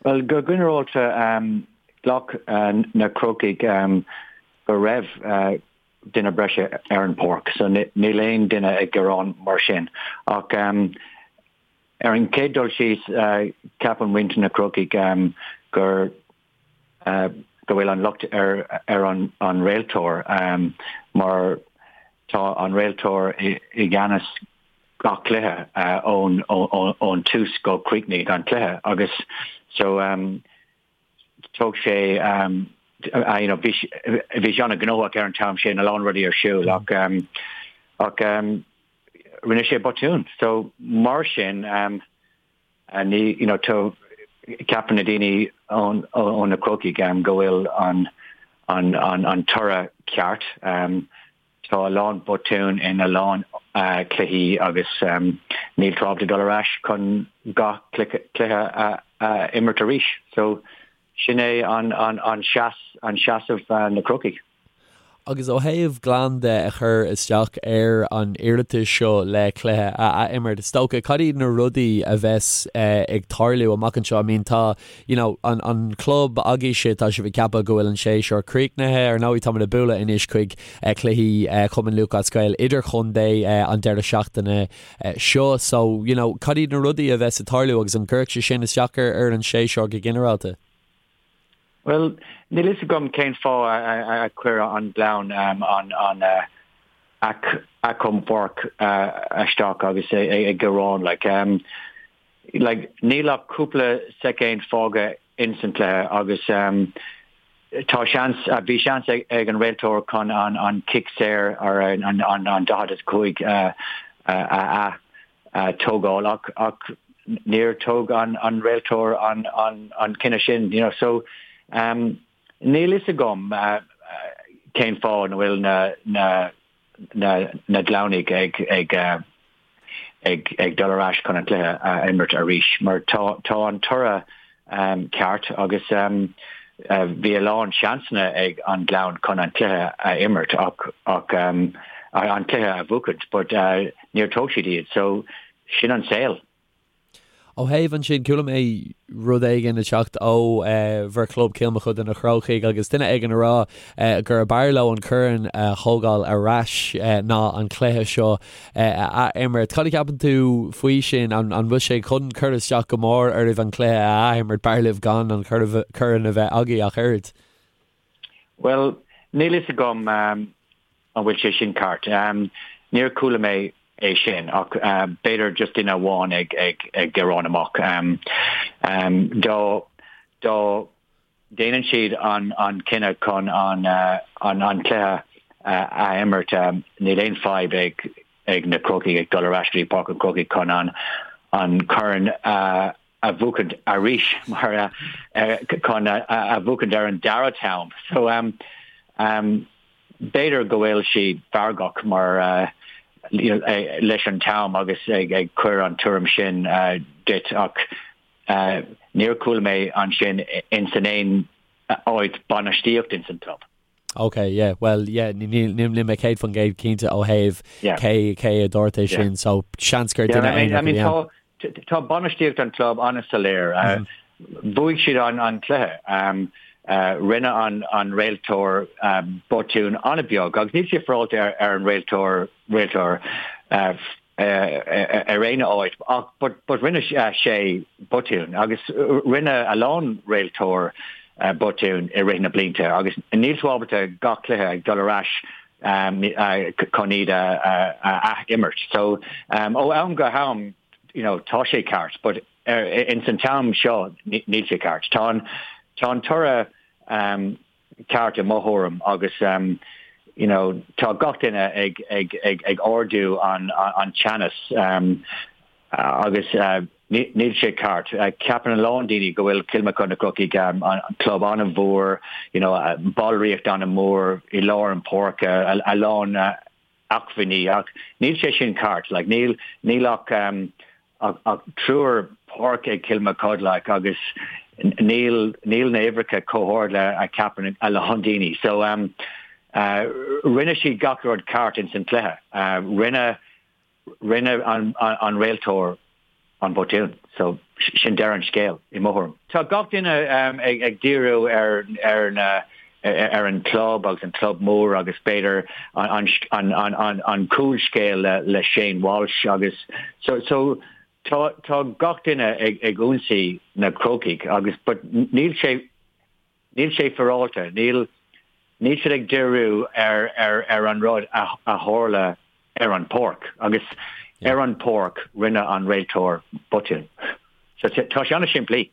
Bhuel, go ginearálta, ghlac na Crócaigh go raibh duine breise ar an bpáirc, so níl aon duine ag gearán mar sin. Ach ar an chéad dul síos, ceapann muintir na Crócaigh gur go bhfuil an locht ar ar an an réiteoir mar tá an réiteoir i gceannas gach cluiche ón ón tús go críochnaigh an cluiche agus so thóg sé you know bhí bhí sé an-ghnóthach ar an t-am sin a lán rudaí ar siúl ach ach rinne sé botún so mar sin Ní, you know, tá, ceapann na daoine ón, ó na Crócaigh go bhfuil an, an, an, an toradh ceart. Tá a lán botún in a lán cluichí agus níl tú ábalta dul ar ais chun gach cluiche a, a imirt arís. So, sin é an, an, an seas, an seasamh na Crócaigh. Agus ó thaobh Gleann de a chur isteach ar an iarratas seo le cluiche a ath-imirt, is dócha, cad iad na rudaí a bheas ag tarlú amach anseo? I mean tá, you know, an, an club agaibhse, tá sibh ag ceapadh go bhfuil an séasúr críochnaithe, ar ndóigh táimid ag bualadh anois chuig cluichí Chumann Lúthchleas Gael idirchontae an deireadh seachtaine seo, so, you know, cad iad na rudaí a bheas ag tarlú agus an gcuirfidh sé sin isteach ar, ar an séasúr go ginearálta? Bhuel, níl fhios agam cén fáth a chuir an Gleann an achomharc isteach agus ag gearán. Like, like, níl ach cúpla soicind fágtha ins an cluiche agus tá seans, bhí seans ag an réiteoir chun an cic saor ar an 45 a tógáil ach ach níor tóg an an réiteoir an an an cinneadh sin you know so um, níl fhios agam uh, cén fáth na bhfuil na na na na Gleannaigh ag ag uh, ag ag dul ar ais chun an cluiche a imirt arís mar tá tá an toradh um, ceart agus um, uh, bhí a lán seansanna ag an Gleann chun an cluiche a imirt ach ach um, an cluiche a bhuachaint but uh, níor tóg siad iad so sin an saol. Ó thaobh ansin, chuala mé rud éigin ag teacht ó bhur chlub Cill Mochuda na Crócaigh agus duine éigin ag rá gurb fhearr leo an corn a thógáil ar ais ná an cluiche seo a ath-imirt. Cad a cheapann tú faoi sin? An bhfuil sé chun cur isteach go mór oraibh an cluiche a ath-imirt? B'fhearr libh gan an corn a bheith agaibh ach oiread. Bhuel, níl fhios agam. An bhfuil sé sin ceart? Níor chuala mé é sin ach b'fhéidir just duine amháin ag ag gearán amach. Dá dá déanann siad an an cinneadh chun an an an cluiche a imirt níl aon fadhb ag ag na Crócaigh ag dul ar ais go dtí Páirc an Chrócaigh chun an an corn a a bhuachaint arís mar chun a bhuachaint ar an dara t-am. So um, um, b'fhéidir go bhfuil siad feargach mar uh, you know, eh, leis an t-am agus ag, ag cur an tuairim sin uh, duit ach uh, níor chuala mé ansin in san aon áit bainistíocht in san club. Ok, yeah, well, yeah, níl mé 100% cinnte ó thaobh cé cé a dúirt é sin, so seans gur duine aonair a bhí ann. Tá bainistíocht an club an-soiléir. Bhuaigh siad an an cluiche. Rinne an an réiteoir botún an-bheag agus níl sé féaráilte ar ar an réiteoir réiteoir ar aon áit ach but but rinne sé botún agus rinne a lán réiteoir botún i rith na blianta agus níl tú ábalta gach cluiche ag dul ar ais chun iad a ath-imirt. So ó am go ham you know tá sé ceart but in san t-am seo níl sé ceart. Tá an tá an toradh ceart i mo thuairim agus you know tá gach duine ag ag ag ag ardú an an teannas agus níl sé ceart. Ceapann a lán daoine go bhfuil Cill Mochuda na Crocaigh an club an-mhór, you know ballraíocht an-mhór i lár an páirce, a lán acmhainní ach níl sé sin ceart like níl níl ach um, ach, ach triúr páirc ag Cill Mochuda like agus níl níl na uimhreacha chomh hard le a ceapann a lán daoine so um, uh, rinne siad gach rud ceart in san cluiche uh, rinne rinne an, an, an réiteoir. an botún. So sin deireadh an scéil i mo thuairim. Tá gach duine ag díriú ar ar na ar an club agus an club mór agus b'fhéidir an an an an an cúlscéal le le Shane Walsh agus so so tá tá gach duine ag ag ionsaí na Crócaigh agus but níl sé Níl sé féaráilte. Níl níl siad ag díriú ar ar ar an rud a a tharla ar an pháirc agus ar an pháirc rinne an réiteoir botún. So tá sé an-simplí.